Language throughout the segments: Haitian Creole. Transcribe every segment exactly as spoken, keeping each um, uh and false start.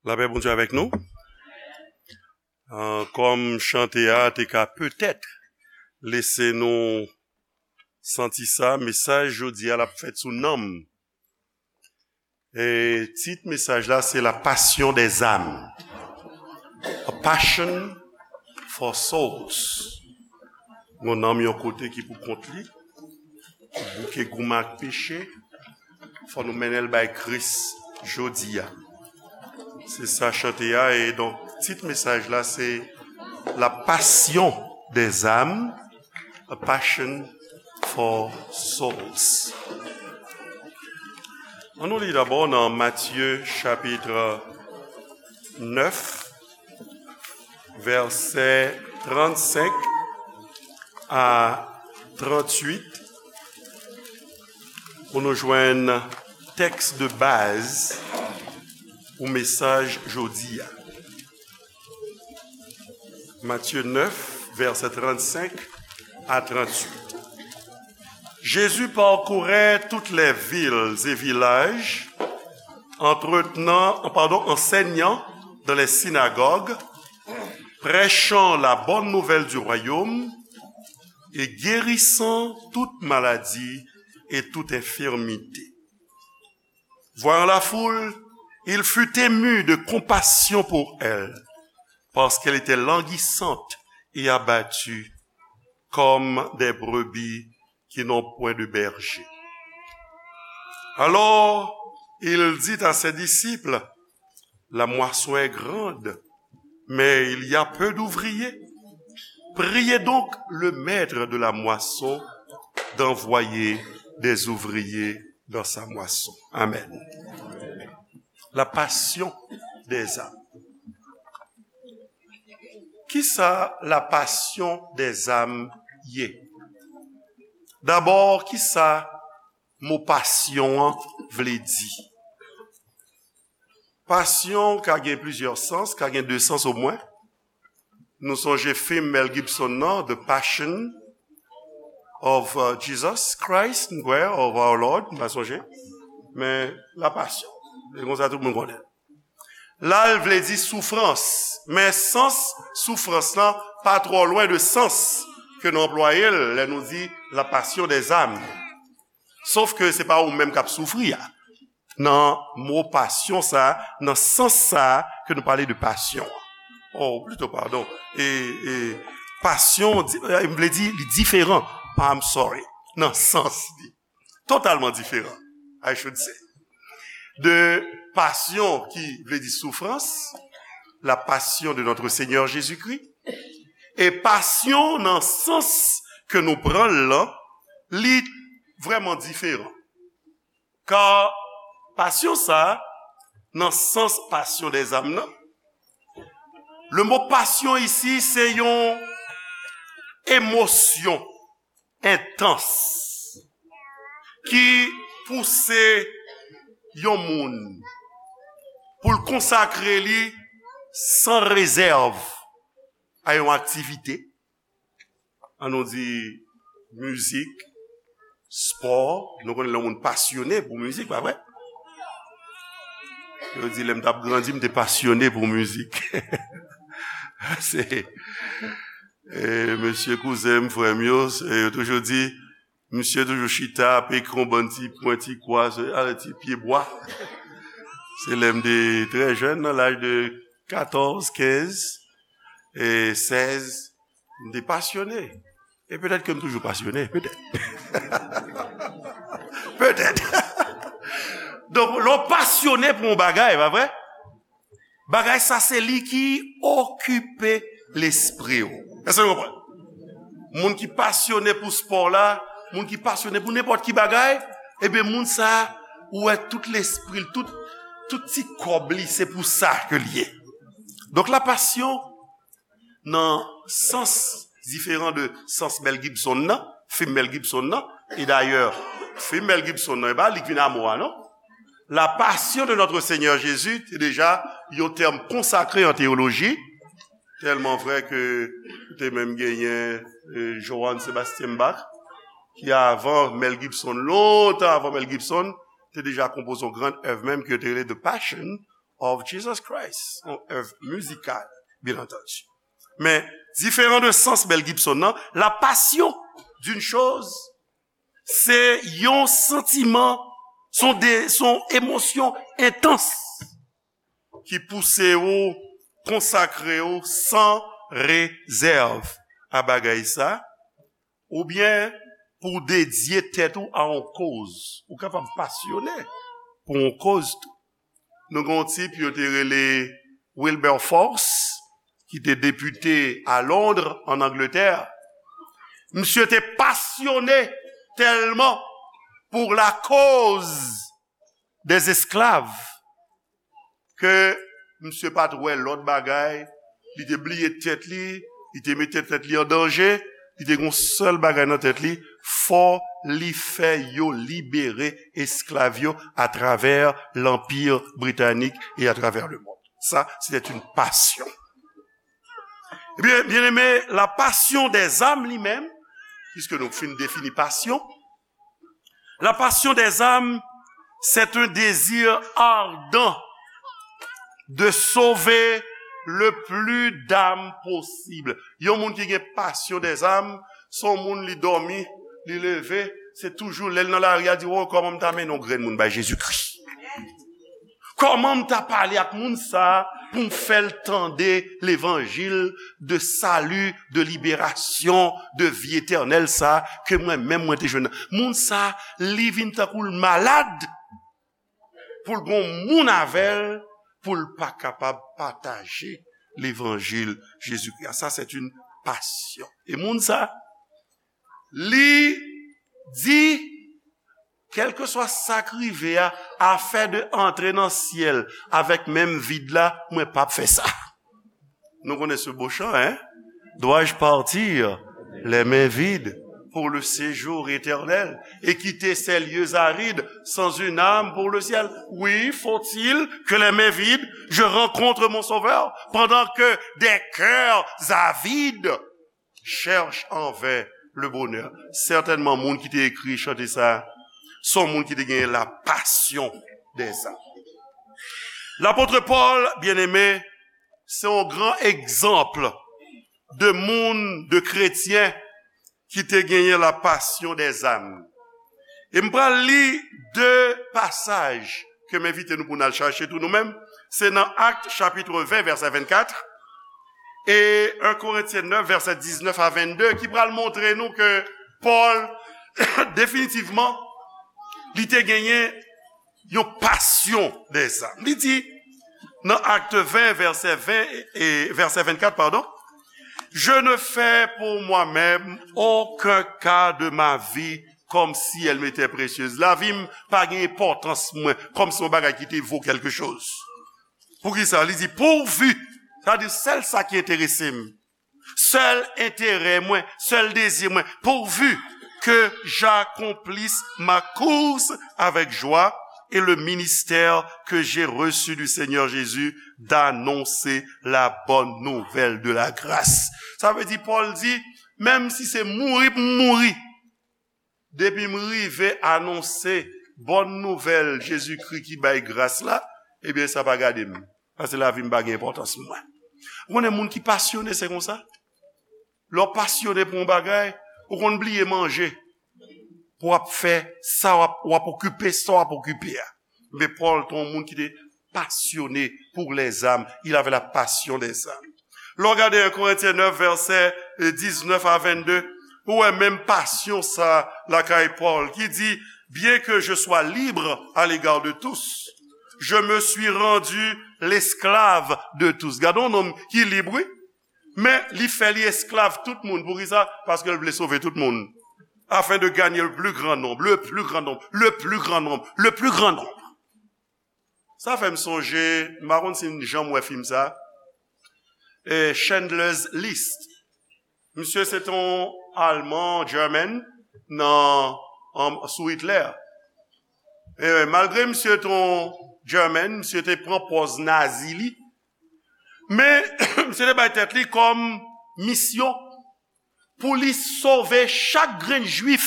Lapè Bondye avèk nou. Ah, kòm chante a te ka petèt lese nou santi sa, mesaj jodi a l ap fèt sou nanm. E tit mesaj la se La Passion des âmes. A Passion for Souls. Yon nanm yon kote ki pou kont li, ki bouke goumen ak peche, fò nou mennen l bay Kris jodi a. Se sa chante a, e donk tit mesaj la se La Passion des âmes, A Passion for Souls. Ann nou li dabò nan Matye chapit nèf, vèsè trannsenk a tranntuit, pou nou jwenn tèks de baz pou mesaj jodi a. Matthieu neuf, versets trente-cinq à trente-huit. Jésus parcourait toutes les villes et villages, entretenant, pardon, enseignant dans les synagogues, prêchant la bonne nouvelle du royaume et guérissant toute maladie et toute infirmité. Voyant la foule, il fut ému de compassion pour elle, parce qu'elle était languissante et abattue comme des brebis qui n'ont point de berger. Alors, il dit à ses disciples, la moisson est grande, mais il y a peu d'ouvriers. Priez donc le maître de la moisson d'envoyer des ouvriers dans sa moisson. Amen. La passion des âmes. Kisa la passion des âmes ye? Dabò, kisa mo pasyon an vle di? Pasyon ka gen plizyè sans, ka gen de sans omwen. Nou sonje fim Mel Gibson nan, The Passion of, uh, Jesus Christ, m kwè, of Our Lord, m pa sonje. Men, La Passion. Se konsa tout moun konnen. La, l vle di soufrans. Men sans soufrans lan pa twò lwen de sans ke nou anplwaye l lè nou di la passion des âmes. Sof ke se pa ou menm k ap soufri a. Nan mo pasyon sa a, nan sans sa a ke nou pale de pasyon an. Oh, plito, padon. E, e, pasyon, di- e, m vle di, li diferan. I'm sorry. Nan sans li. Totalman diferan, I should say. De pasyon ki vle di soufrans, la passion de notre Seigneur Jésus-Christ. E pasyon nan sans ke nou pran l lan, li vrèman diferan. Ka pasyon sa a, nan sans passion des âmes nan, le mo passion ici, se yon emosyon entans ki pouse yon moun pou l konsakre li san rezèv a yon aktivite, ann nou di mizik, spò. Nou konnen lè yon moun pasyone pou mizik, pa vre? Yo di, lè m t ap grandi, m te pasyone pou mizik. Se, e, mesye kouzen m, frè m yo, se, yo toujou di, misye toujou chita, ap ekri yon bann ti pwen, ti kwa, se, a, ti pye bwa. Se lè m te trè jèn, nan laj de katòz, kenz, e sèz, m te pasyone. E petèt ke m toujou pasyone, petèt. Petèt. Donk, lè w pasyone pou yon bagay, pa vre? Bagay sa se li ki okipe lespri w. Èske nou konprann? Moun ki pasyone pou spò la, moun ki pasyone pou nenpòt ki bagay, ebyen, moun sa, ou wè tout lespri l, tout, tout ti kòb li, se pou sa ke l ye. Donk, la passion, nan sans diferan de sans Mel Gibson nan, fim Mel Gibson nan. E dayè, fim Mel Gibson nan, e pa li k vin a mo a, non? La Passion de Notre Seigneur Jésus te deja yon tèm konsakre an teyoloji, tèlman vrè ke te menm genyen, e, Johann Sebastian Bach, ki avan Mel Gibson, lontan avan Mel Gibson, te deja konpoze yon gran èv menm ki yo te rele The Passion of Jesus Christ, yon èv mizikal, byen antandi. Men, diferan de sans Mel Gibson nan, la passion d'une chose, se yon santiman, son de, son emosyon entans ki pouse ou konsakre ou san rezèv a bagay sa, oubyen pou w dedye tèt ou a yon koz. Ou kapab pasyone pou yon koz tou. Nou gen yon tip yo te rele Wilberforce, ki te depite a Londres, an Angletè. Misye te pasyone tèlman pou la cause des esclaves ke misye pa t wè lòt bagay, li te bliye tèt li, li te mete tèt li an danje, li te gen yon sèl bagay nan tèt li, fò li fè yo libere esklav yo atravè Lanpi Britanik e atravè le mond. Sa, c'était une passion. Ebyen, byeneme, la passion des âmes li menm, piske nou fin defini pasyon, la passion des âmes, c'est un désir ardent de sauver le plus d'âmes possible. Yon moun ki gen passion des âmes, se yon moun li dòmi, li leve, se toujou lè l nan lari a di, "Oh, kòman m ta mennen yon grenn moun bay Jezikri? Kòman m ta pale ak moun sa a pou m fè l tande levanjil de sali, de liberasyon, de vi etènèl sa a ke mwen menm mwen te jwenn nan?" Moun sa a, li vin tankou l malad pou l gon moun avè l, pou l pa kapab pataje levanjil Jezikri a. Sa, c'est une passion. E moun sa, li di, kèlkeswa sa k rive a, afè de antre nan syèl avèk men m vid la, mwen p ap fè sa. Nou konnen se bo chan, hein? Dois-je partir les mains vides pour le séjour éternel et quitter ces lieux arides sans une âme pour le ciel? Oui, faut-il que les mains vides, je rencontre mon Sauveur, pendant que des cœurs avides cherchent en vain le bonheur. Sètènman, moun ki te ekri chante sa, se yon moun ki te gen la passion des âmes. Lapot Pòl, byeneme, se yon gran egzanp de moun, de kretyen ki te genyen la passion des âmes. E m pral li de pasaj ke m envite nou pou n al chache tou nou menm. Se nan Actes chapitre vingt, verset vingt-quatre, e un Corinthiens neuf, verset dix-neuf à vingt-deux, ki pral montre nou ke Pòl, definitivman, li te genyen yon passion des âmes. Li di, nan Actes vingt, verset vingt et verset vingt-quatre, pardon, je ne fais pour moi-même aucun cas de ma vie comme si elle m'était précieuse. Lavi m pa gen enpòtans mwen, kòm se yon bagay ki te vo kèlke choz. Poukisa? Li di, pourvu, sa di sèl sa ki enterese m, sèl enterè mwen, sèl dezi mwen, pourvu que j'accomplisse ma course avec joie et le ministère que j'ai reçu du Seigneur Jésus d'annoncer la bonne nouvelle de la grâce. Sa vle di, Pòl di, menm si se mouri pou m mouri, depi m rive anonse bòn nouvèl Jezikri ki bay gras la, ebyen, sa pa gade m. Paske lavi m pa gen enpòtans pou mwen. Ou konnen moun ki pasyone, se konsa. Lè w pasyone pou yon bagay, ou konn bliye manje. Pou w ap fè sa w ap, w ap okipe, sa w ap okipe a. Men Pòl te yon moun ki te passionné pour les âmes. Il avait la passion des âmes. Lè w gade un Corinthiens neuf, verset dix-neuf à vingt-deux, ou wè menm pasyon sa lakay Pòl ki di, bien que je sois libre à l'égard de tous, je me suis rendu l'esclave de tous. Gade yon nonm ki lib, wi. Men li fè li esklav tout moun. Poukisa? Paske l vle sove tout moun. Afin de gagner le plus grand nombre, le plus grand nombre, le plus grand nombre, le plus grand nombre. Sa fè m sonje, m pa konn si n janm wè fim sa, e, Schindler's List. Misye se t on Alman, German, nan, an, sou Hitler. E, malgre misye t on German, misye te pran pòz nazi li, men misye te bay tèt li kòm misyon pou li sove chak grenn jwif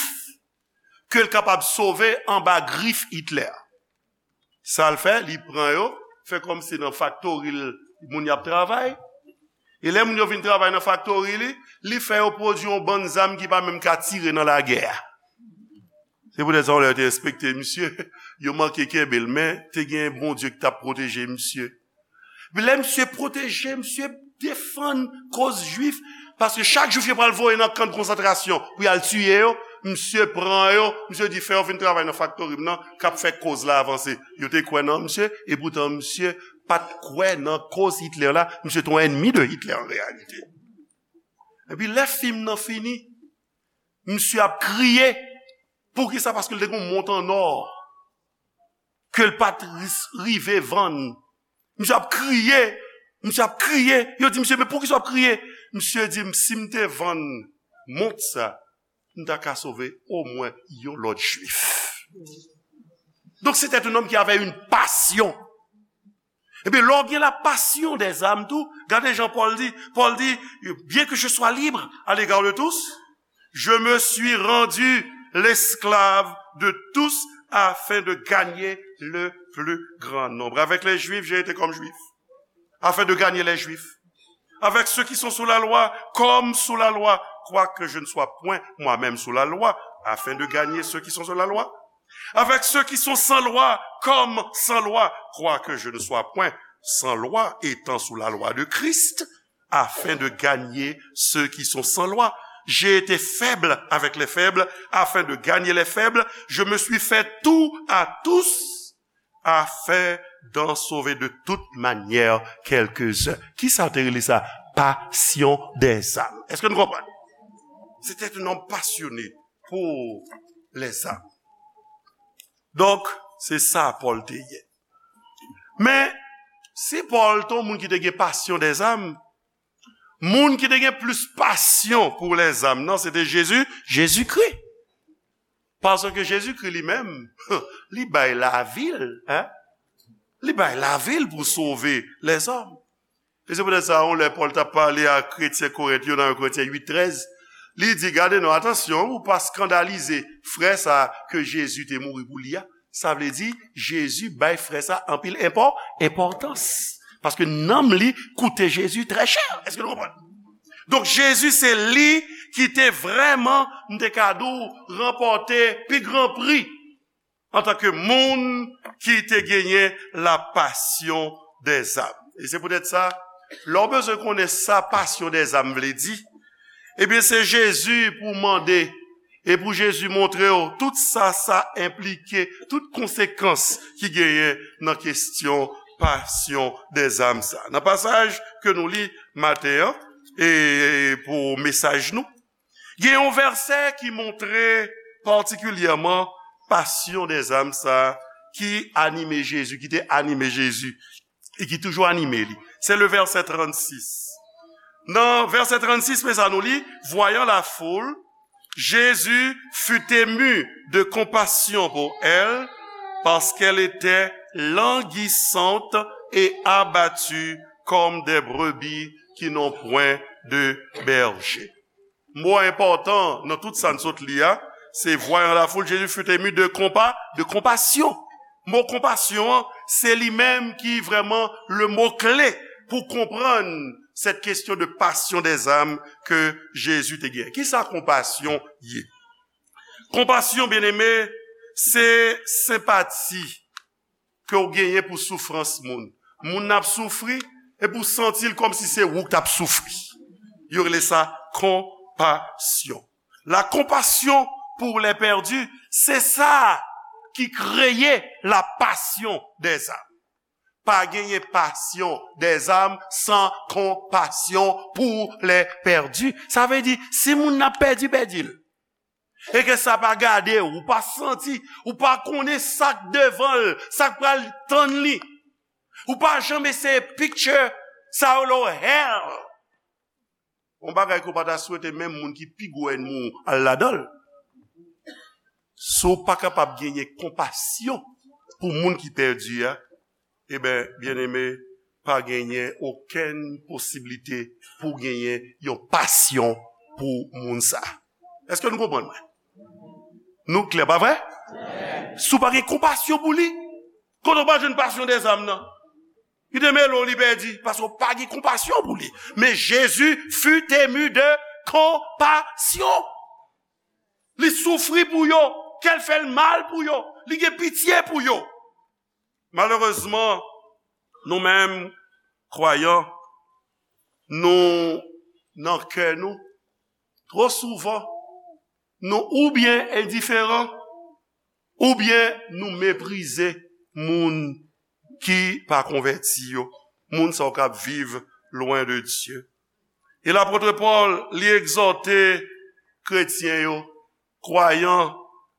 ke l kapab sove anba grif Hitler. Sa l fè, li pran yo, fè kòmsi nan faktori l moun y ap travay. E lè moun yo vin travay nan faktori li, li fè yo pwodui yon bann zam ki pa menm ka tire nan lagè a. Se poutèt sa, yon lè yo te enspekte misye, yo manke kenbe l, men te gen Bondye ki t ap pwoteje misye. Epi lè misye pwoteje, misye defann koz Jwif, paske chak Jwif yo pral voye nan kan de konsantrasyon pou y al tiye yo, misye pran yo, misye di, "Fè yo vin travay nan faktori m nan, k ap fè koz la avanse." Yo te kwè nan misye, epoutan misye pa t kwè nan koz Hitler la, misye te yon ènmi de Hitler an reyalite. Epi lè fim nan fini, misye ap kriye. Poukisa? Paske l te gen yon mont an nò ke l pa t ris- rive vann. Misye ap kriye, misye ap kriye. Yo di misye, "Men poukisa w ap kriye?" Misye di, "Si m te vann mont sa, m ta ka sove omwen yon lòt Jwif." Donc, c'était un homme qui avait une passion. Ebyen, lè w gen la passion des âmes tou, gade jan Pòl di, Pòl di, "Bien que je sois libre à l'égard de tous, je me suis rendu l'esclave de tous afin de gagner le plus grand nombre. Avec les Juifs, j'ai été comme Juif, afin de gagner les Juifs. Avec ceux qui sont sous la loi, comme sous la loi, quoique je ne sois point moi-même sous la loi, afin de gagner ceux qui sont sous la loi. Avec ceux qui sont sans loi, comme sans loi, quoique je ne sois point sans loi, étant sous la loi de Christ, afin de gagner ceux qui sont sans loi. J'ai été faible avec les faibles, afin de gagner les faibles. Je me suis fait tout à tous, afin d'en sauver de toute manière quelques-uns." Kisa w te rele sa? Passion des âmes. Èske nou konprann? C'était un homme passionné pour les âmes. Donk, se sa Pòl te ye. Men, si Pòl te yon moun ki te gen passion des âmes, moun ki te gen plis passion pour les âmes nan, se te Jezi, Jezikri. Paske Jezikri li menm, li bay lavi l, hein? Li bay lavi l pou sove lèzòm. E se poutèt sa, yon lè Pòl t ap pale a kretyen Korent yo nan yon Korentyen uit trèz, li di, "Gade non, atansyon, ou pa eskandalize frè sa a ke Jezi te mouri pou li a." Sa vle di, Jezi bay frè sa a anpil enpò-, enpòtans. Paske nanm li koute Jezi trè chè. Èske nou konprann? Donk, Jezi se li ki te vrèman, m te ka di w, ranpòte pi gran pri antanke moun ki te genyen la passion des âmes. E se poutèt sa, lè w bezwen konnen sa passion des âmes vle di, ebyen, se Jezi pou w mande e pou Jezi montre w tout sa sa enplike, tout konsekans ki genyen nan kesyon passion des âmes sa. Nan pasaj ke nou li maten an, e pou mesaj nou, gen yon vèsè ki montre patikilyèman passion des âmes sa ki anime Jezi, ki te anime Jezi, e ki toujou anime li. Se le vèsè trannsis. Nan vèsè trannsis, men sa nou li, voyant la foule, Jésus fut ému de compassion pour elle, parce qu'elle était languissante et abattue comme des brebis qui n'ont point de berger. Mo enpòtan nan tout sa n sot li a, se voyant la foule, Jésus fut ému de compa-, de compassion. Mo konpasyon an, se li menm ki vrèman le mot clé pou konprann cette question de passion des âmes ke Jezi te gen. Kisa konpasyon ye? Konpasyon, byeneme, se senpati ke w genyen pou soufrans moun. Moun nan ap soufri, epi w santi l kòmsi se ou k t ap soufri. Yo rele sa konpasyon. La compassion pour les perdus, se sa ki kreye la passion des âmes. Pa genyen passion des âmes san konpasyon pou les perdus. Sa vle di, si moun nan pèdi, pèdi l. E ke sa pa gade w, ou pa santi, ou pa konnen sa k devan l, sa k pral tann li. Ou pa janm eseye picture sa yo lo hell. Yon bagay ke w pa ta swete menm moun ki pi gwo ènmi w al ladan l. Si w pa kapab genyen konpasyon pou moun ki pèdi a, eben, byeneme, pa genyen okenn posiblite pou w genyen yon pasyon pou moun sa. Èske nou konprann mwen? Nou klè, pa vre? Si w pa gen konpasyon pou li, kote w pral jwenn passion des âmes nan? Li te mele w, li pèdi, paske w pa gen konpasyon pou li. Men Jezi fut ému de compassion. Li soufri pou yo, kè l fè l mal pou yo, li gen pitye pou yo. Malerezman, nou menm, kwayan, nou, nan kè nou, twò souvan, nou oubyen endiferan, oubyen nou meprize moun ki pa konvèti yo, moun sa yo k ap viv lwen de Dye. E lapot Pòl, li egzòte kretyen yo, kwayan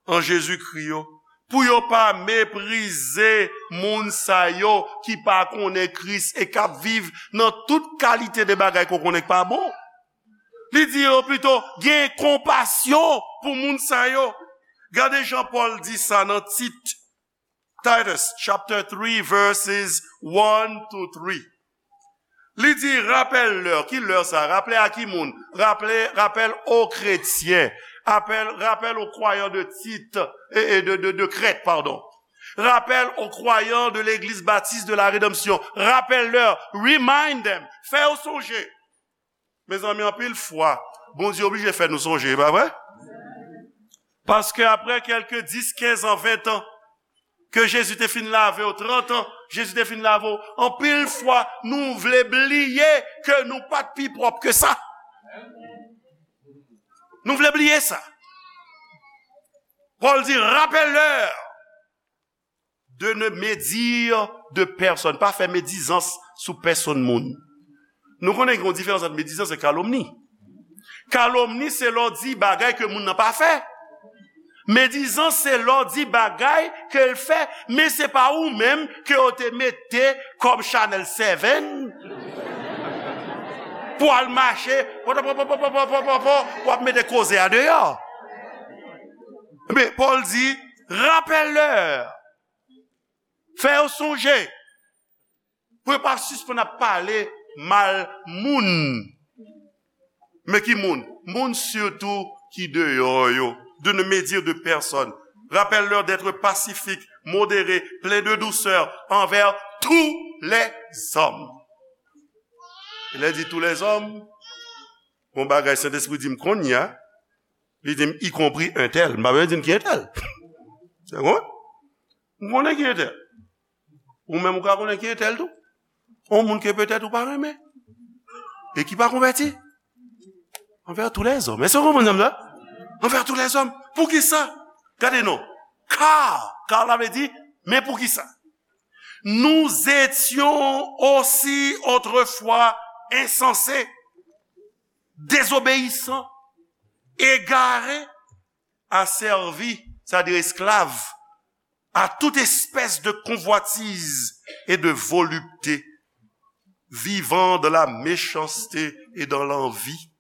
an Jezikri yo, pou yo pa meprize moun sa yo ki pa konnen Kris e k ap viv nan tout kalite de bagay ke w konnen k pa bon. Li di yo pito gen konpasyon pou moun sa yo. Gade jan Pòl di sa nan Tit, Titus chapter three verses one to three. Li di, rapèl lè, ki lè sa? Rapèl a ki moun? Rapèl, rapèl o kretyen. Rapèl, rapèl o kwayan de Tit, e, e de, de, de Krèt, padon. Rapèl o kwayan de l'église baptiste de la rédemption. Rapèl lè, remind them, fè yo sonje. Mezanmi, anpil fwa, Bondye oblije fè nou sonje, e pa vre? Paske apre kèlke dis, kenz an, ven an, ke Jezi te fin lave w, trant an, Jezi te fin lave w, anpil fwa, nou vle bliye ke nou pa t pi pwòp ke sa. Nou vle bliye sa. Pòl di, rappelle-leur de ne médire de personne. Pa fè medizans sou pèsonn moun. Nou konnen gen yon diferans ant medizans e kalomni. Kalomni se lè w di bagay ke moun nan pa fè. Medizans se lè w di bagay ke l fè, men se pa ou menm ke yo te mete kòm Chanel Seven pou al mache, pòtòpòtòpòtòpòtòpò, w ap mete koze a deyò. Men Pòl di, rappelle-leur. Fè yo sonje. Pou yo pa sispann ap pale mal moun. Men ki moun? Moun sitou ki deyò yo. De ne médire de personne. Rappelle-leur d'être pacifique, modéré, plein de douceur envers tous les hommes. E lè di tous les hommes, yon bagay Sentespri di m kounye a, li di m, y compris un tel. M pa bezwen di m ki entèl. Se bon? M konnen ki entèl. Ou menm ou ka konnen ki entèl tou. Yon moun ke petèt ou pa renmen. E ki pa konvèti. Envers tous les hommes. Èske w konprann sa m di la? Envers tous les hommes. Poukisa? Gade non. Car, car la vle di, men poukisa? Nous étions aussi autrefois insensés, désobéissants, égarés, asservis, c'est-à-dire esclaves, à toute espèce de convoitise et de volupté, vivant dans la méchanceté et dans l'envie,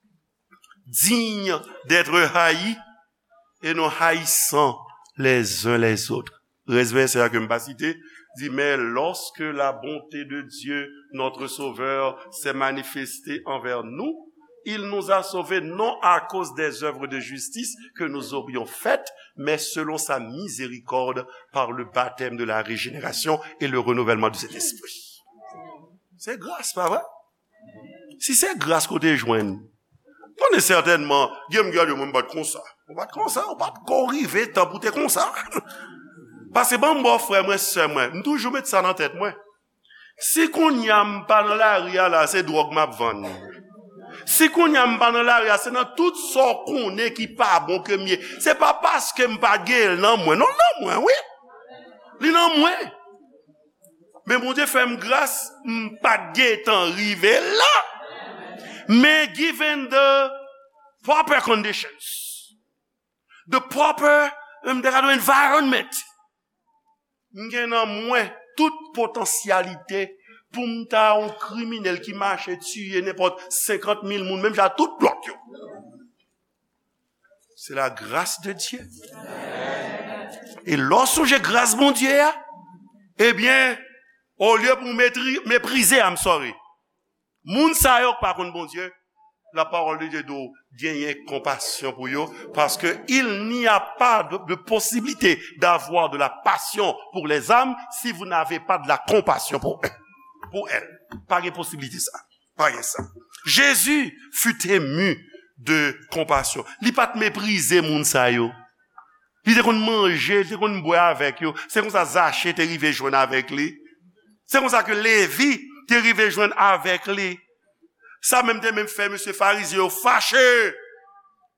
dignes d'être haïs et nous haïssant les uns les autres. Rès vèsè a ke m pa site, di, mais lorsque la bonté de Dieu, notre Sauveur, s'est manifestée envers nous, il nous a sauvés non à cause des œuvres de justice que nous aurions faites, mais selon sa miséricorde par le baptême de la régénération et le renouvellement du Saint-Esprit. Se gras, pa vre? Si se gras ke w te jwenn, konnen sètènman, gen moun ki ap di, mwen m pa t konsa. Ou pa t konsa, ou pa t ko rive tan pou te konsa. Paske ban m ba w, frè mwen, sè mwen, m toujou met sa nan tèt mwen. Si kounye a m pa nan lari a la, se dwòg m ap vann. Si kounye a m pa nan lari a, se nan tout sa w konnen ki pa bon ke m ye. Se pa paske m pa gen l nan mwen. Non, l nan mwen, wi. Li nan mwen. Men Bondye fè m gras, m pa t gentan rive la. Men given the proper conditions, the proper, m te ka di environment, m gen nan mwen tout potansyalite pou m ta yon kriminèl ki mache tiye nenpòt senkant mil moun, menm jan ak tout lòt yo. C'est la grâce de Dieu. E lè w sonje gras Bondye a, ebyen, olye pou w metri-, meprize, I'm sorry, moun sa yo k pa konn Bondye, la parole de Dieu di w genyen konpasyon pou yo, parce que il n'y a pas de, de possibilité d'avoir de la passion pour les âmes si vous n'avez pas de la compassion pour eux. pour elle. Pa gen posiblite sa. Pa gen sa. Jésus fut ému de compassion. Li pa t meprize moun sa yo. Li te konn manje, li te konn bwè avèk yo. Se konsa Zache te rive jwenn avèk li. Se konsa ke Levi te rive jwenn avèk li. Sa menm te menm fè mesye Farizyen yo fache.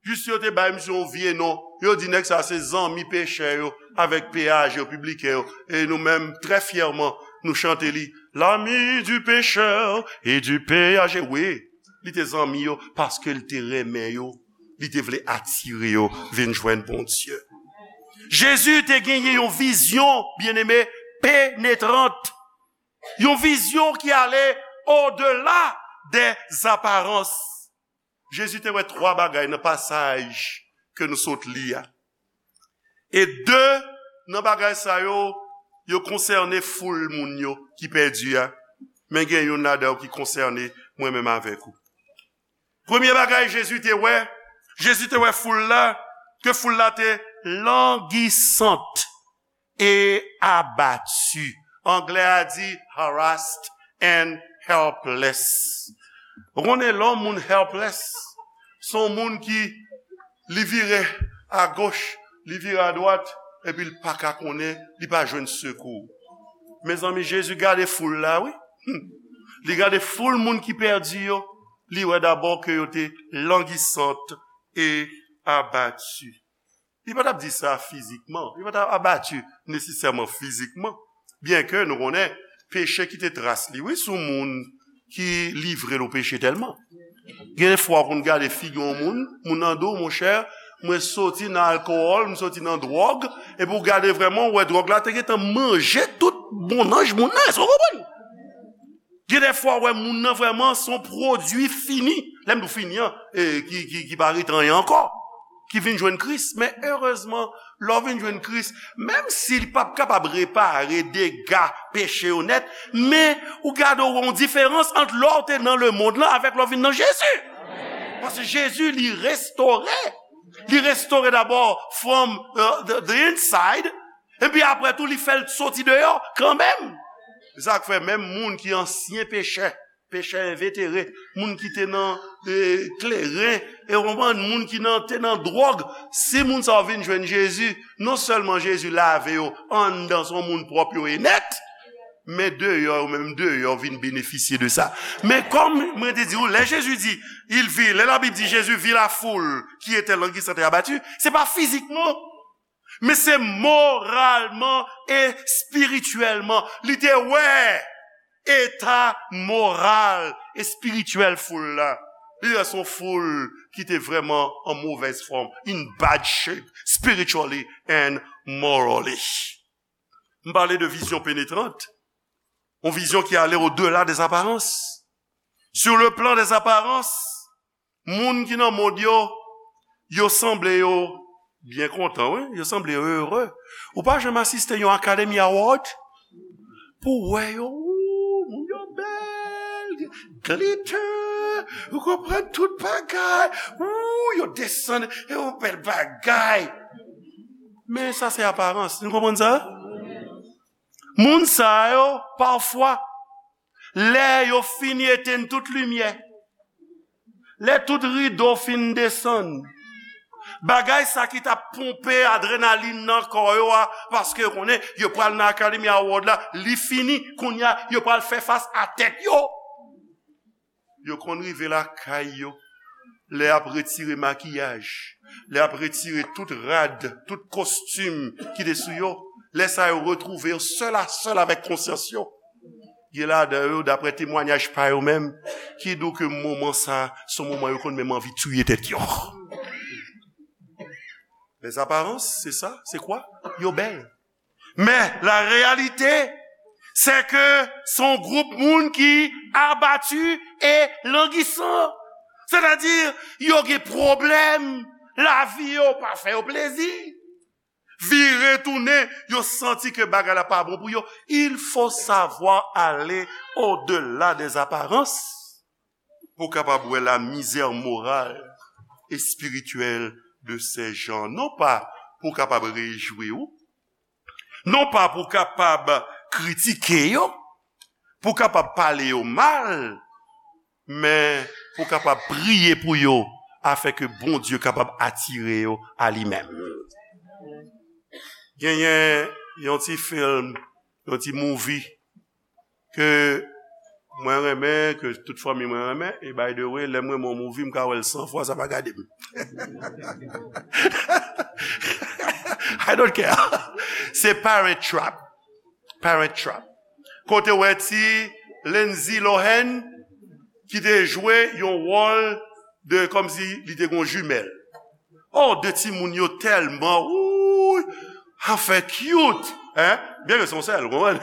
Jis yo te bay misye yon vye non. Yo di nèg sa se zanmi pechè yo avèk P A G yo, pibliken yo. E nou menm, trè fyèman, nou chante li, l'ami du pécheur et du P A G. Wi, li te zanmi yo paske li te renmen yo. Li te vle atire yo vin jwenn Bondye. Jezi te genyen yon vizyon, byeneme, penetrant. Yon vizyon ki ale odela des apparences. Jezi te wè twa bagay nan pasaj ke nou sot li a. E de nan bagay sa yo, yo konsène foul moun yo ki pèdi a. Men gen youn ladan yo ki konsène mwen menm avèk ou. Premye bagay Jezi te wè, Jezi te wè foul la, ke foul la te langisant e abati. Anglè a di harassed and helpless. Ou konnen lè yon moun helpless, se yon moun ki li vire agoch, li vire adwat, epi li pa ka konnen, li pa jwenn sekou. Mezanmi, Jezi gade foul la, wi. Li gade foul moun ki pèdi yo, li wè dabò ke yo te langisant e abati. Li pa t ap di sa fizikman. Li pa t ap abati nesesèman fizikman. Byenke nou konnen peche kite tras li, wi, sou moun ki livre l o peche tèlman. Gen de fwa w konn gade figi yon moun, moun nan di w, monchè, mwen soti nan alkòl, m soti nan dwòg, epi w gade vrèman, w wè dwòg la te gentan manje tout bonnanj moun nan, èske w konprann? Gen de fwa, w wè moun nan vrèman se yon pwodui fini. Lè m di w fini an, e, ki, ki, ki pa ret anyen ankò, ki vin jwenn Kris. Men erezman, lè w vin jwenn Kris, menm si li p ap kapab repare dega peche yo nèt, men ou gade w wè yon diferans ant lè w te nan lemonn lan avèk lè w vin nan Jezi. Paske Jezi, li restore. Li restore dabò from, uh, the, the inside. Epi apre tou, li fè l soti deyò kanmenm. Se sa k fè menm moun ki ansyen pechè, pechè envetere, moun ki te nan, e, kleren, e w konprann, moun ki nan, te nan dwòg, si moun sa yo vin jwenn Jezi, non sèlman Jezi lave yo anndan, se yon moun pwòp yo ye nèt, men deyò, yo menm deyò vin benefisye de sa. Men kòm mwen te di w, lè Jezi di, il vit, lè Labib di Jésus vit la foule qui était languissante et abattue, se pa fizikman, men se moralman e espirityèlman. Li te wè eta moral, espirityèl foul la. Li wè se yon foul ki te vrèman an movèz fòm, in bad shape, spiritually and morally. M pale de vizyon penetrant, yon vizyon ki ale odela des apparences. Sur le plan des apparences, moun ki nan mond yo, yo sanble yo byen kontan, wi. Yo sanble yo ere. Ou pa janm asiste yon Academy Award pou w wè yo, wou, moun yo bèl, glitter, ou konprann tout bagay, wou, yo desann, e yon bèl bagay. Men sa se aparans, nou konprann sa? Moun sa yo, pafwa, lè yo fin etenn tout limyè, lè tout rido fin desann, bagay sa ki t ap ponpe adrenalin nan kò yo a, paske yo konnen yo pral nan Academy Award la, li fini, kounye a yo pral fè fas a tèt yo. Yo konn rive lakay yo, lè y ap retire makiyaj, lè y ap retire tout rad, tout kostim ki te sou yo, lè sa yo retwouve yo sèl a sèl avèk konsyans yo. Gen ladan yo, daprè temwayaj pa yo menm, ki di w ke moman sa, se yon moman yo konn menm anvi tiye tèt yo. Les apparences, c'est ça, c'est quoi? Yo bèl. Men, la réalité, c'est que se yon gwoup moun ki abati e langisan. Sètadi, yo gen pwoblèm, lavi yo pa fè yo plezi. Vire tounen, yo santi ke bagay la pa bon pou yo. Il faut savoir aller au-delà des apparences pou w kapab wè la misère morale et spirituelle de ces gens. Non pa pou w kapab rejwi w, non pa pou w kapab kritike yo, pou w kapab pale yo mal, men pou w kapab priye pou yo, afin ke Bondye kapab atire yo a li menm. Genyen yon ti fim, yon ti movie ke mwen renmen, ke tout fanmi mwen renmen, e by the way, lè m renmen yon movie, m ka wè l san fwa, sa pa gade m. I don't care. Se Parent Trap. Parent Trap. Kote w wè ti Lindsay Lohan ki te jwe yon wòl de, kòmsi li te gon jimèl. Oh, de timoun yo tèlman, wouy, anfen cute, hein? Byen ke se yon sèl, ou konprann?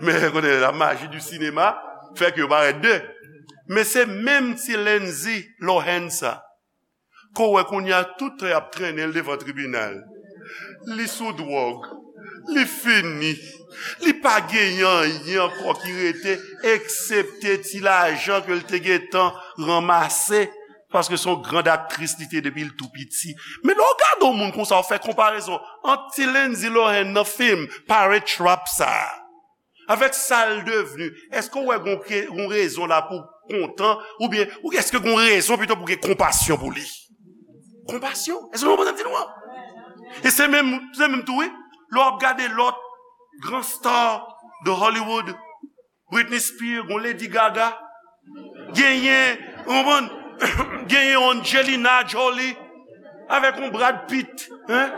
Men, konnen la magie du cinéma fè ke yo parèt de. Men se menm ti Lindsay Lohan sa. Ke w wè kounye a tout tan y ap trennen l devan tribinal. Li sou dwòg. Li fini. Li pa genyen anyen ankò ki rete, eksepte ti lajan ke l te gentan ranmase, paske se yon grand aktris li te depi l tou piti. Men lè w gade yon moun konsa, w fè konparezon ant ti Lindsay Lohan nan fim Parent Trap sa a, avèk sa l devni, èske w wè gon ke, gon rezon la pou kontan, oubyen, ou èske gon rezon pito pou gen konpasyon pou li? Konpasyon. Èske w konprann sa m di nou an? E se menm, se menm tou, wi. Lè w ap gade lòt gran star de Hollywood, Britney Spears, gon Lady Gaga, genyen, ou konprann? Genyen Angelina Jolie, avèk yon Brad Pitt, hein?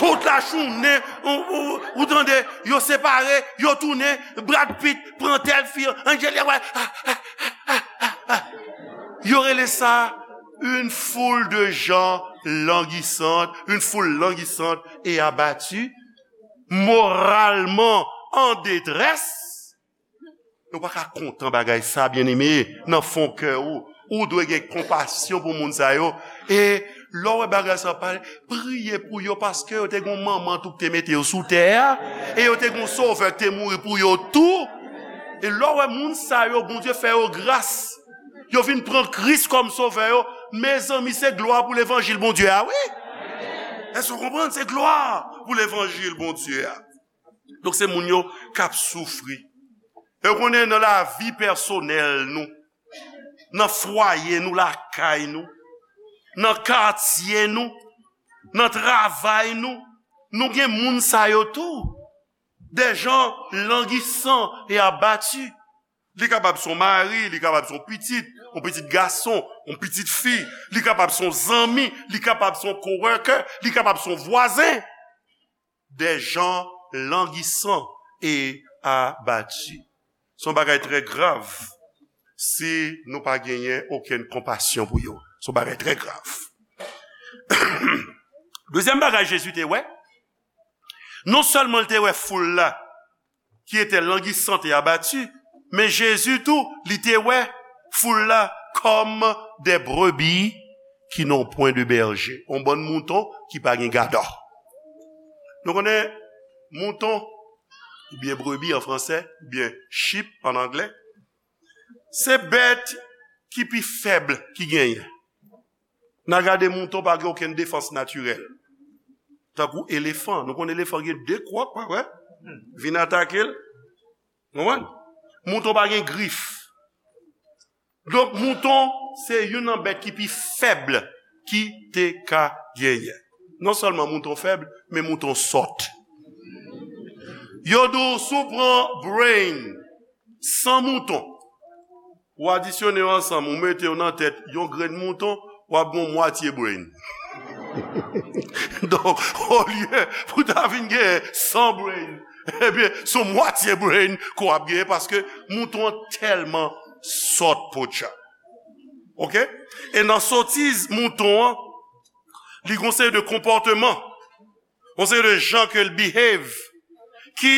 Tout la jounen, ou, ou, ou tande, yo separe, yo tounen, Brad Pitt pran tèl fi, Angelina, ah, ah, ah, ah, ah. Yo rele sa une foule de gens languissants, une foule languissante et abattue, moralement en détresse. Nou pa ka kontan bagay sa, byeneme, nan fon kè ou. Ou dwe gen konpasyon pou moun sa yo. E lè w wè bagay sa pale, priye pou yo, paske yo te gen yon manman tou ki te mete yo sou tè a, e yo te gen yon sovè ki te mouri pou yo tou. E lè w wè moun sa yo, Bondye fè yo gras, yo vin pran Kris kòm sovè yo, mezanmi, se glwa pou levanjil Bondye a, wi. Èske w konprann? Se glwa pou levanjil Bondye a. Donk, se moun yo k ap soufri. E w konnen, nan lavi pèsonèl nou, nan fwaye nou, lakay nou, nan katye nou, nan travay nou, nou gen moun sa yo tou. Des gens languissants et abattus. Li kapab se yon mari, li kapab se yon pitit, yon pitit gason, yon pitit fi, li kapab se yon zanmi, li kapab se yon coworker, li kapab se yon vwazen. Des gens languissants et abattus. Se yon bagay trè grav si nou pa genyen okenn konpasyon pou yo. Se yon bagay trè grav. Dezyèm bagay Jezi te wè, non sèlman l te wè foul la, qui étaient languissantes et abattues, men Jezi tou, li te wè foul la comme des brebis qui n'ont point de berger. Yon bann mouton ki pa gen gadò. Nou konnen mouton, oubyen brebi an fransè, oubyen sheep an anglè, se bèt ki pi fèb ki genyen. N a gade mouton pa gen okenn defans natirèl. Tankou elefan. Nou konn elefan gen de kwòk, pa vre? Vin atake l. Konprann? Mouton pa gen grif. Donk, mouton se youn nan bèt ki pi fèb ki te ka genyen. Non sèlman mouton fèb, men mouton sòt. Yo di w, si w pran brain san mouton, ou adisyone yo ansanm, ou mete yo nan tèt yon grenn mouton, w ap gen yon mwatye brain. Donk, olye pou ta vin gen san brain, ebyen, se yon mwatye brain ke w ap genyen, paske mouton an tèlman sòt, poutcha. Oke? E nan sotiz mouton an, li gon seri de konpòteman, yon seri de jan ke l behave, ki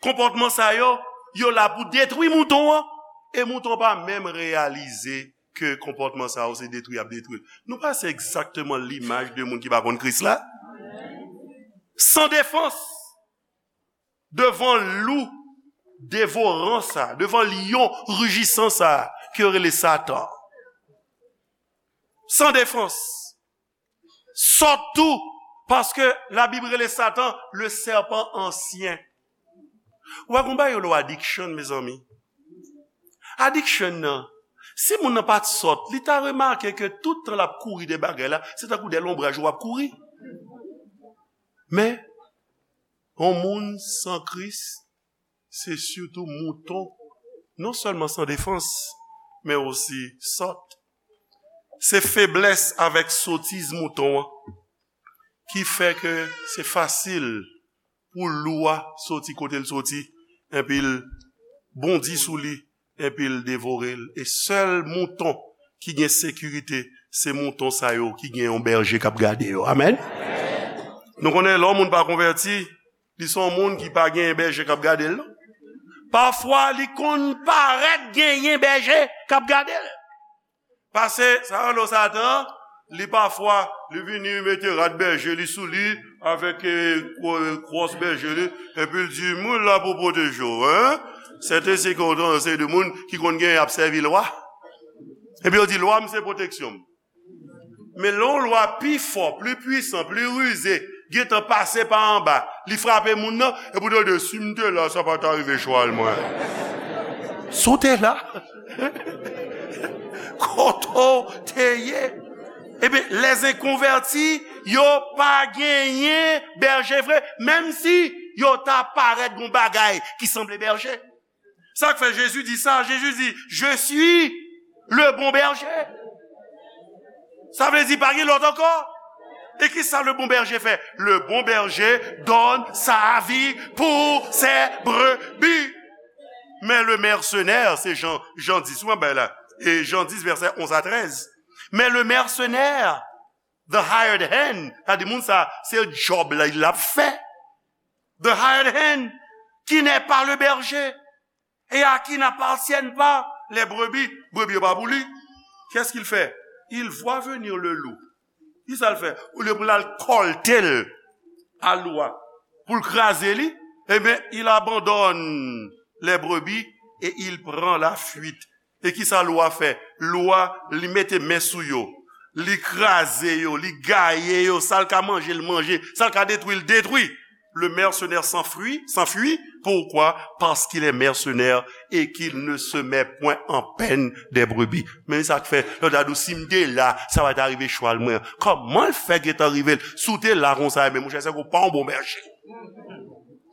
konpòtman sa yo, yo la pou detwi mouton an, e mouton an pa menm reyalize ke konpòtman sa yo se detwi y ap detwi l. Nou pa se egzakteman limaj de moun ki pa konn Kris la? San defans, devan lou devoran sa, devan lyon rijisan sa, ke yo rele Satan. San defans. Sòt tou, paske Labib rele Satan le serpent ancien. Ou pa konn bagay yo lo addiction, mezanmi. Addiction nan, si moun nan pa t sòt, li ta remake ke tout tan l ap kouri de bagay la, se tankou de lonbraj w ap kouri. Men, yon moun san Kris, se sitou mouton, non sèlman san defans, men osi sòt. Se feblès avèk sotiz mouton an ki fè ke se fasil pou lou a soti kote l soti, epi l bondi sou li, epi l devore l. E sèl mouton ki gen sekirite, se mouton sa yo ki gen yon bèje k ap gade yo. Amèn? Nou konnen lè yon moun pa konvèti, li se yon moun ki pa gen bèje k ap gade l, non. Pafwa, li konn parèt genyen bèje k ap gade l. Pase, sa yo rele Satan, li pafwa, li vini mete rad bèje li sou li, avèk, eh, kwo-, kwòs bèje li, epi l di, "Mwen la pou pwoteje w, en?" Sèten se kontan, se de moun ki konn gen ap sèvi lwa. Epi yo di, "Lwa m se pwoteksyon m." Men lè yon lwa pi fò, pli pwisan, pli rize, gentan pase pa anba, li frape moun nan, epi w tande, "Si m te la, sa pa ta rive chwal mwen." Si w te la, kote w te ye? Ebyen, lèzenkonvèti, yo pa genyen bèje vre, menm si yo ta parèt gon bagay ki sanble bèje. Sa k fè Jezi di sa? Jezi di, "Je suis le bon berger." Sa vle di pa gen lòt ankò. E ki sa le bon berger fè? Le bon berger donne sa vie pour ses brebis. Men le mercenaire, se Jan, Jan dis, ou an bay la. E Jan dis, vèsè onz a trèz. Men le mercenaire, the hired hand, sa di moun sa, se djòb la, l ap fè. The hired hand, qui n'est pas le berger, et à qui n'appartiennent pas les brebis. Brebis yo pa pou li. Qu'est-ce qu'il fait? Il voit venir le loup. Ki sa l fè? Olye pou l al kòlte l a lou a, pou l kraze li, ebyen, il abandonne les brebis et il prend la fuite. E ki sa lou a fè? Lou a, li mete men sou yo. Li kraze yo, li gaye yo, sa l ka manje, l manje, sa l ka detwi, l detwi. Le mercenaire s'enfuit, s'enfuit. Pourquoi? Parce qu'il est mercenaire et qu'il ne se met point en peine des brebis. Men sa k fè, lè w ta di w, "Si m te la, sa pa ta rive chwal mwen." Kòman l fè gentan rive l? Si w te la konsa, men monchè, se ke w pa yon bon bèje.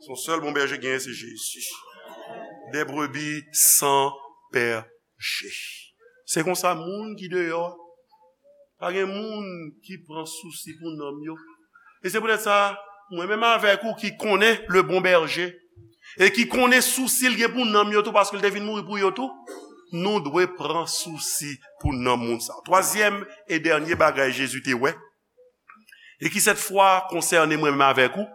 Se yon sèl bon bèje genyen, se Jezi. Des brebis sans berger. Se konsa moun ki deyò a, pa gen moun ki pran sousi pou nanm yo. E se poutèt sa, mwen menm avèk ou ki konnen le bon berger, e ki konnen sousi l gen pou nanm yo tou, paske l te vin mouri pou yo tou, nou dwe pran sousi pou nanm moun sa. Twazyèm e dènye bagay Jezi te wè, e ki sèt fwa konsène mwen menm avèk ou,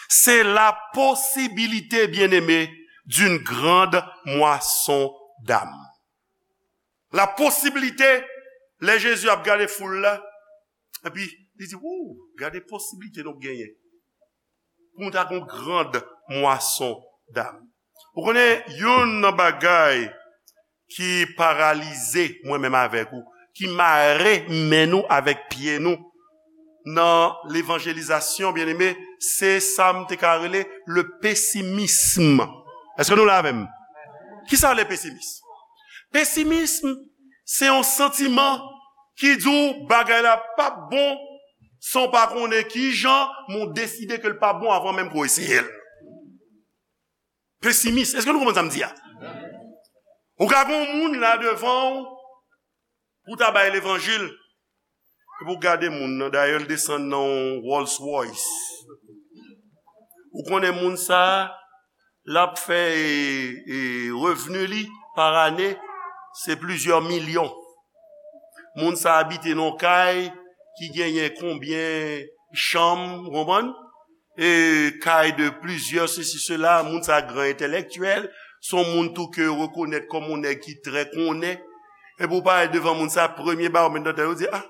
c'est la possibilité, bien-aimé, d'une grande moisson d'âmes. La posibilite, lè Jezi ap gade foul la, epi li di, "Wou, gade posibilite nou genyen pou nou ta gon grand mwason dam." Ou konnen, youn nan bagay ki paralize mwen menm avèk ou, ki mare men nou avèk pye nou nan levanjelizasyon, byeneme, se sa m te ka rele le pesimism. Èske nou la avè m? Ki sa le pesimism? Pesimism, se yon santiman ki di w bagay la p ap bon, san w pa konnen ki jan, men w deside ke l p ap bon avan menm ke w eseye l. Pesimis. Èske nou konprann sa m di a? Ou ka gen yon moun la devan w pou w ta bay levanjil, epi w gade moun nan, dayè l desann nan yon Rolls Royce. Ou konnen moun sa a, l ap fè, e, e, revni li pa ane, se plizyè milyon. Moun sa a abite nan yon kay ki genyen konbyen chanm, ou konprann? E kay de plizyè sesi, sela, moun sa a gran entèlektyèl, se yon moun tou ke yo rekonèt kòm yon nèg ki trè konnen. Epi w parèt devan moun sa a, premye bagay w met nan tèt ou, di, "Ah,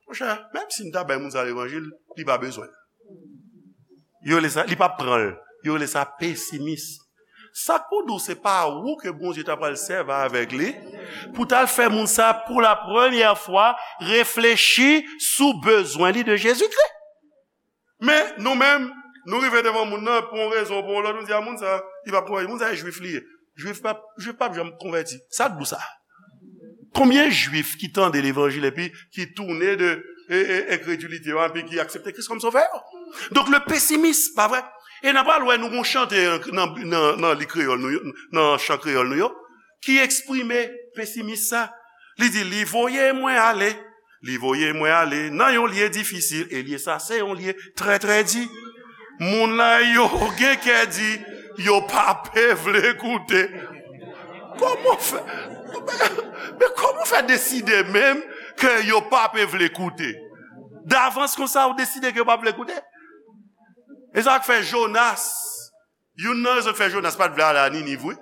monchè, menm si m ta bay moun sa a levanjil, li pa bezwen l." Yo rele sa, li p ap pran l. Yo rele sa pesimis. Sa k pou di w se pa ou ke Bondye ta pral sèvi avèk li pou t al fè moun sa pou la premyè fwa reflechi sou bezwen li de Jezikri. Men nou menm, nou rive devan moun nan pou yon rezon ou pou yon lòt, nou di a moun sa, li p ap pran, moun sa e jwif li ye. Jwif p ap, Jwif p ap janm konvèti. Sa k di w sa? Konbyen Jwif ki tande levanjil epi ki tounen de e, e, enkredilite yo epi ki aksepte Kris kòm sovè yo? Donk, le pesimis, pa vre? E n a pral wè nou gon chante nan, nan, nan li kreyòl nou yo, nan chan kreyòl nou yo, ki eksprime pesimis sa. Li di, li voye mwen ale, li voye mwen ale nan yon lye difisil, e lye sa se yon lye trè, trè di. Moun la yo gen kè di, yo pa pe vle koute. Kòman w fè, men kòman w fè deside menm ke yo pa pe vle koute? Davans konsa, ou deside ke yo pa vle koute? E sa k fè Jonas, youn nan rezon k fè Jonas pa t vle ale a Niniv, wi.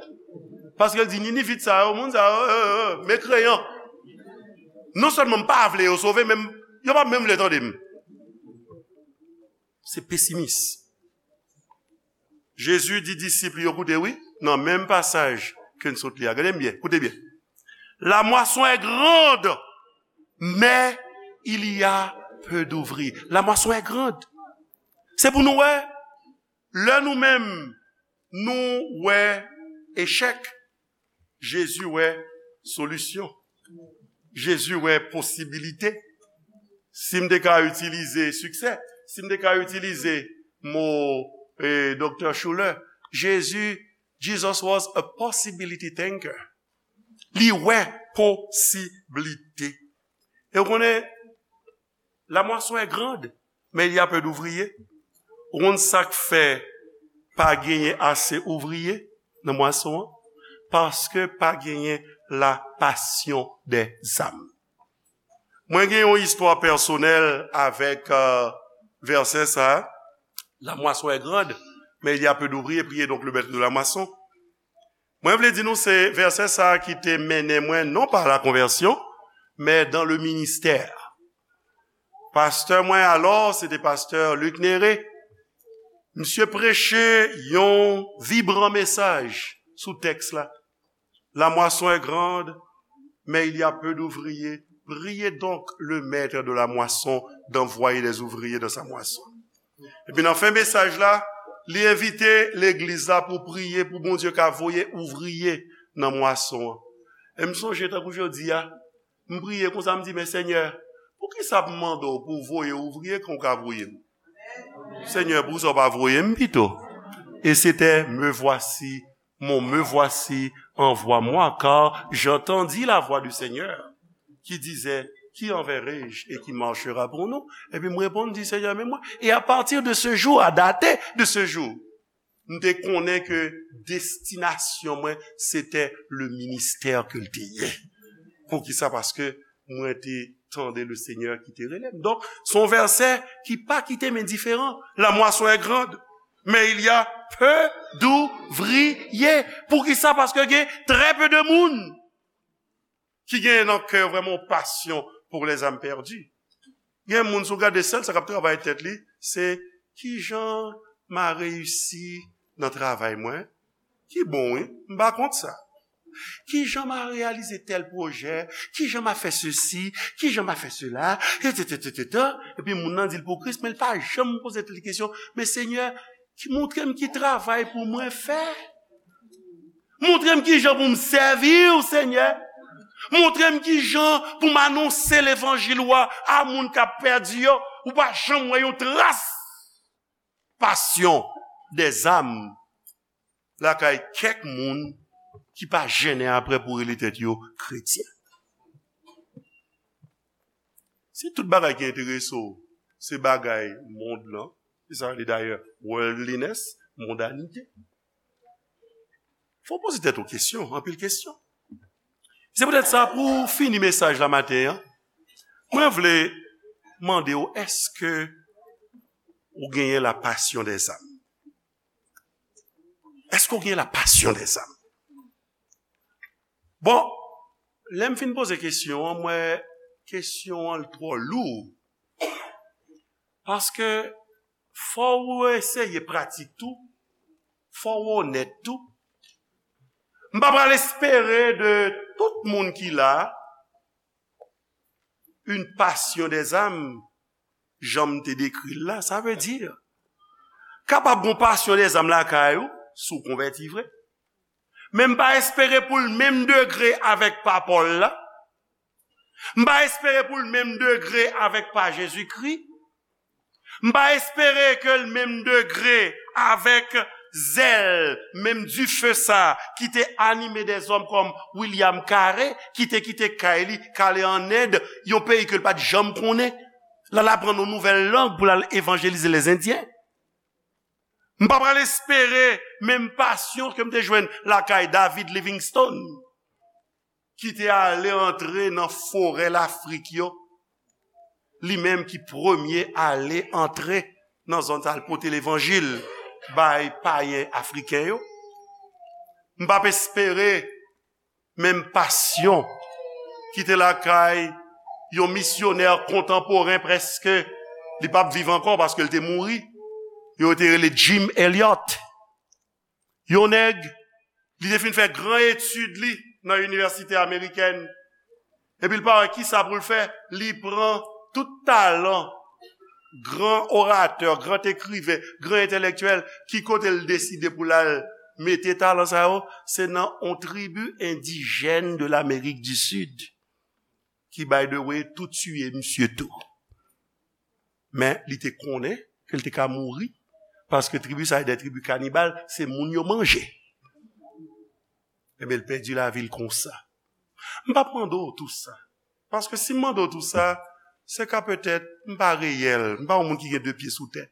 Paske l di, Ninivit sa yo, moun sa yo, e, e, e, mekreyan. Non sèlman m pa vle yo sove, men m, yo pa menm vle tande m. Se pesimis. Jezi di disip li yo, koute, wi, nan menm pasaj ke n sot li a. Gade m byen, koute byen. La moisson est grande, mais il y a peu d'ouvriers. La moisson est grande. Se pou nou wè, lè nou menm, nou wè echèk, Jezi wè solisyon. Jezi wè posibilite. Si m te ka itilize siksè, si m te ka itilize mo, eh, Doktè Schuller, Jezi, Jesus was a possibility thinker. Li wè posiblite. E w konnen, la moisson est grande, mais il y a peu d'ouvriers. Ou konn sa k fè pa genyen ase ouvriye nan mwason an? Paske pa genyen la passion des âmes. Mwen gen yon istwa pèsonèl avèk, euh, vèsè sa a. La moisson est grande, mais il y a peu d'ouvriers. Priez donc le maître de la moisson. Mwen vle di nou se vèsè sa a ki te mennen mwen non pa la konvèsyon, men dans le ministère. Pastè mwen alò, se te pastè Luc Néré. Misye preche yon vibran mesaj sou tèks la. La moisson est grande, mais il y a peu d'ouvriers. Priez donc le maître de la moisson d'envoyer des ouvriers dans sa moisson. Epi nan fen mesaj la, li envite legliz la pou priye pou Bondye ka voye ouvriye nan mwason an. E m sonje tankou jodi a, m priye konsa, m di, men Senyè, poukisa m mande w pou w voye ouvriye kan w ka voye m? Senyè, poukisa w pa voye m pito? Et c'était, me voici, mon me voici, envoie-moi, car j'entendis la voix du Seigneur qui disait, qui enverrai-je et qui marchera pour nous? Epi m reponn, di, Senyè, men mwen. E a pati de se jou, a date de se jou, m te konnen ke destinasyon mwen, se te le ministè ke l te ye. Poukisa? Paske mwen te tande le Senyè ki te rele m. Donk, se yon vèsè ki pa kite m endiferan. La moisson est grande, mais il y a peu d'ouvriers. Poukisa? Paske gen très peu de moun ki gen nan kè yo vrèman yon passion pour les âmes perdues. Gen moun, si w gade sèl sa k ap travay tèt li, se kijan m a reyisi nan travay mwen. Ki bon, wi, m pa kont sa. Kijan m a reyalize tèl pwojè, kijan m a fè sesi, kijan m a fè sela, etsetera. Epi moun nan di l pou Kris, men l pa janm poze tèt li kesyon, men Senyè, ki, montre m ki travay pou mwen fè. Montre m ki jan pou m sèvi w, Senyè. Montre m ki jan pou m anonse levanjil ou a, a moun k ap pèdi yo. Ou pa janm wè yon tras passion des âmes lakay kèk moun ki pa jennen apre pou rele tèt yo kretyen. Si tout bagay ki enterese w, se bagay mond lan, se sa yo rele dayè worldliness, mondanite. Fò w poze tèt ou kesyon, anpil kesyon. Se poutèt sa, pou fini mesaj la maten an, mwen vle mande w, èske ou genyen la passion des âmes? Èske w genyen la passion des âmes? Bon, lè m fin poze kesyon an, m wè kesyon an twò lou. Paske fò w eseye pratik tou, fò w onèt tou. M pa pral espere de tout moun ki la, une passion des âmes, jan m te dekri l la, sa vle di, kapab gon passion des âmes lakay ou, si w konvèti vre. Men m pa espere pou l menm degre avèk pa Pòl la. M pa espere pou l menm degre avèk pa Jezikri. M pa espere ke l menm degre avèk zèl, menm dife sa ki te anime dèzòm kòm William Carey, ki te kite kay li, k ale ann End, yon peyi ke l pa t janm konnen, l al aprann yon nouvèl lang pou l al evanjelize lèzendyen. M pa pral espere menm pasyon ke m te jwenn lakay David Livingstone, ki te ale antre nan forè Lafrik yo, li menm ki premye ale antre nan zòn sa, al pote levanjil bay payen afriken yo. M p ap espere menm pasyon ki te lakay yon misyonè kontanporen, prèske li p ap viv ankò paske l te mouri, yo te rele Jim Elliot. Yon nèg, li te fin fè gran etid li nan inivèsite amerikèn. Epi l pa wè kisa pou l fè, li pran tout talan gran oratè, gran ekriven, gran entèlektyèl, ki kote l deside pou l al mete talan sa yo? Se nan yon tribi endijèn de l'Amérique du Sud, ki, by the way, tou tiye misye tou. Men li te konnen ke l te ka mouri, paske tribi sa a de tribi kanibal, se moun yo manje. Ebyen, l pèdi lavi l konsa. M p ap mande w tou sa. Paske si m mande w tou sa, se ka petèt m pa reyèl, m pa yon moun ki gen de pye sou tèt.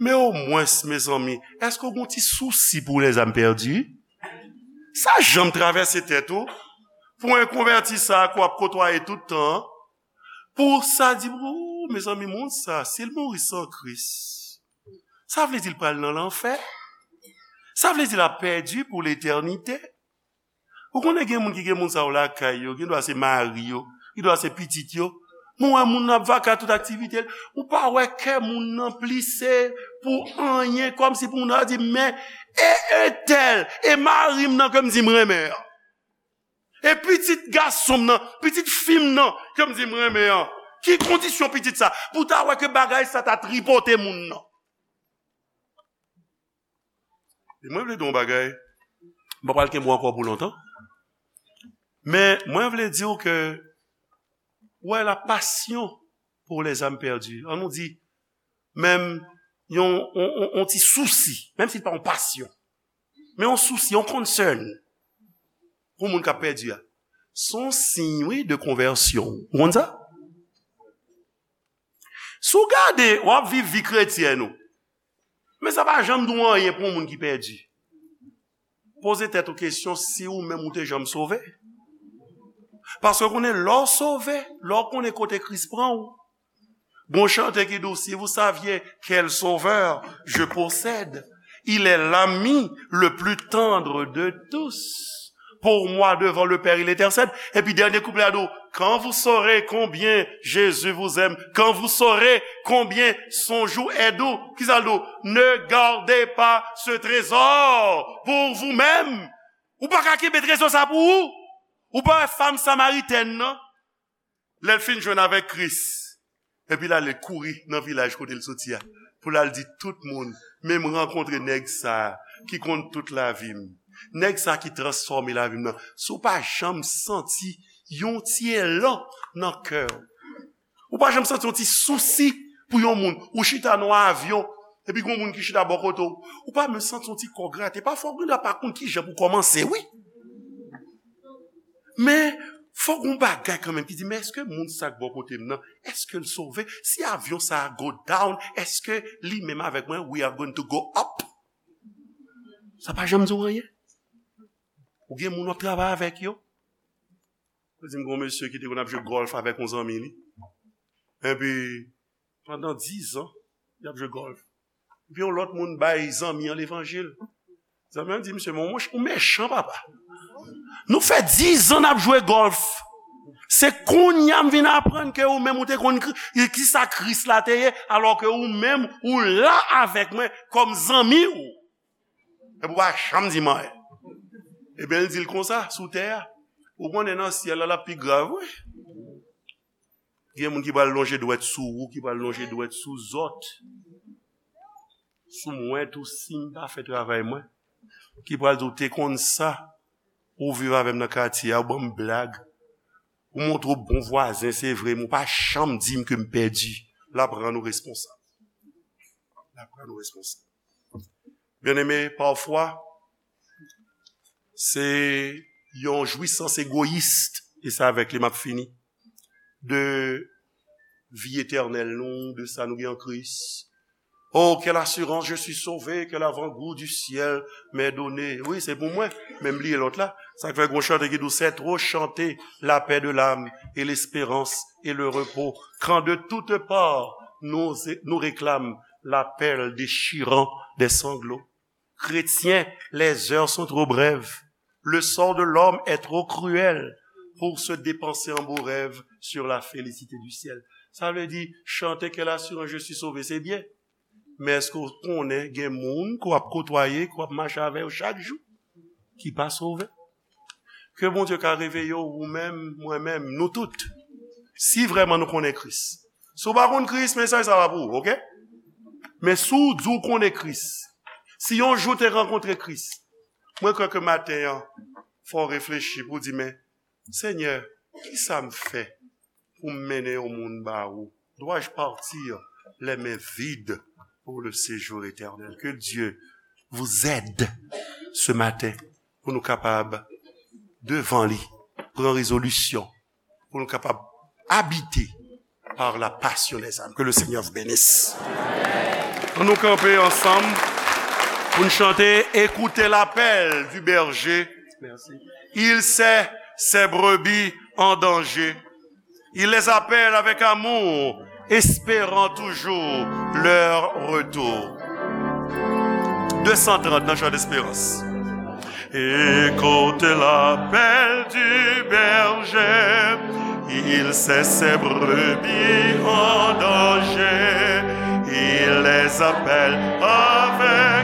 Men omwens, mezanmi, èske w gen yon ti sousi pou lèzam pèdi? Sa janm travèse tèt ou? Pou yon konvèti sa a ke w ap kotwaye tout tan an, pou sa di, o, mezanmi, moun sa, si l mouri san Kris, sa vle di l pral nan lanfè. Sa vle di l ap pèdi pou letènite. Ou konnen gen moun ki gen moun sa yo lakay yo, gen dwa se mari yo, gen dwa se pitit yo. Men w wè moun nan ap vaka tout aktivite l. Ou pa wè kè moun nan plise pou anyen, kòmsi pou moun nan di, men, e entèl, e mari m nan ke m di m renmen an. E pitit gason m nan, pitit fi m nan, ke m di m renmen an. Ki kondisyon pitit sa? Pou w ta wè ke bagay sa ta tripote moun nan. E mwen vle di w yon bagay, m pa pral kenbe w ankò pou lontan. Men mwen vle di w ke, wè, la passion pour les âmes perdues. An nou di, menm yon, yon, yon, yon ti sousi, menm si l pa yon pasyon, men yon sousi, yon concern pou moun k ap pèdi a. Se yon siy, wi, de konvèsyon. Ou konn sa? Si w gade, w ap viv vi kretyèn ou. Men sa pa janm di w anyen pou yon moun ki pèdi. Poze tèt ou kesyon si ou menm ou te janm sove. Paske w konnen lè w sove, lè w konnen kote Kris pran w. Gon chante ki di w, si vous saviez quel sauveur je possède, il est l'ami le plus tendre de tous. Pour moi, devant le Père, il intercède. Epi dènye kouplè a di w, quand vous saurez combien Jésus vous aime, quand vous saurez combien son joug est doux. Kisa l di w? Ne gardez pas ce trésor pour vous-même. Ou pa ka kenbe trezò sa pou ou. Ou pa wè fanm samaritèn nan? Lè l fin jwenn avèk Kris, epi l ale kouri nan vilaj kote l soti a, pou l al di tout moun, men m rankontre nèg sa a ki konn tout lavi m. Nèg sa a ki transfòme lavi m nan. Si w pa janm santi yon ti elan nan kè w, ou pa janm santi yon ti sousi pou yon moun, ou chita nan yon avyon, epi gon moun ki chita bò kote w, ou pa menm santi yon ti kò grate. Pafwa, ou gendwa pa konn kijan pou kòmanse, wi. Men, fò gon bagay kanmenm ki di, men èske moun sa k bò kote m nan, èske l sove? Si avyon sa a go down, èske li menm avèk mwen, we are going to go up? Sa pa janm di w anyen. Ou gen moun w ap travay avèk yo. Ou di m gon mesye ki te konn ap jwe gòlf avèk yon zanmi li. Epi, pandan diz an, y ap jwe gòlf. Epi yon lòt moun bay zanmi an levanjil. Zanmi an di, "Mesye, men ou mechan, papa. Nou fè diz an n ap jwe gòlf. Se kounye a m vin aprann ke ou menm ou te konn Kri-, kisa Kris la te ye, alò ke ou menm ou la avèk mwen kòm zanmi w." Epi w pa janm di m anyen. Ebyen, l di l konsa, sou tè a. Ou konnen nan syèl la, l ap pi grav, wi. Gen moun ki pral lonje dwèt sou ou, ki pral lonje dwèt sou zòt. Sou mwen tou, si m pa fè travay mwen. ki pral di w te konn sa, ou viv avè m nan katye a, ou ban m blag, ou montre w bon vwazen, se vre, men ou pa janm di m ke m pèdi. L ap rann ou responsab. L ap rann ou responsab. Byeneme, pafwa, se yon jwisans egoyis, e se avèk li m ap fini, de vi etènèl nou, de sa nou gen an Kris. Oh, quelle assurance, je suis sauvé, quel avant-goût du ciel m'est donné. Wi, se pou mwen, men m bliye lòt la. Sa k fè gon chante ki di w, c'est trop chanter la paix de l'âme et l'espérance et le repos, quand de toutes parts nous, nous réclament l'appel déchirant des sanglots. Chrétiens, les heures sont trop brèves. Le sort de l'homme est trop cruel pour se dépenser en beaux rêves sur la félicité du ciel. Sa vle di, chante quelle assurance, je suis sauvé, se byen. Men èske w konnen gen moun ke w ap kotwaye, ke w ap mache avè yo chak jou, ki pa sove? Ke Bondye ka reveye w, ou menm, mwen menm, nou tout. Si vrèman nou konnen Kris. Si w pa konn Kris, mesaj sa pa pou ou, oke? Men si w di w konnen Kris, si yon jou w te rankontre Kris, mwen kwè ke maten an, fò w reflechi pou w di, men, Senyè, kisa m fè pou m mennen yon moun ba ou? Dois-je partir les mains vides pour le séjour éternel? Que Dieu vous aide ce matin pou nou kapab, devan li, pran rezolisyon, pou nou kapab abite par la passion des âmes. Que le Seigneur vous bénisse. Ann nou kanpe ansanm pou n chante Écoutez l'appel du berger. Merci. Il sait ses brebis en danger. Il les appelle avec amour, espérant toujours leur retour. Deux cent trente dans Chant d'espérance. Écoute l'appel du berger, il sait ses brebis en danger, il les appelle avec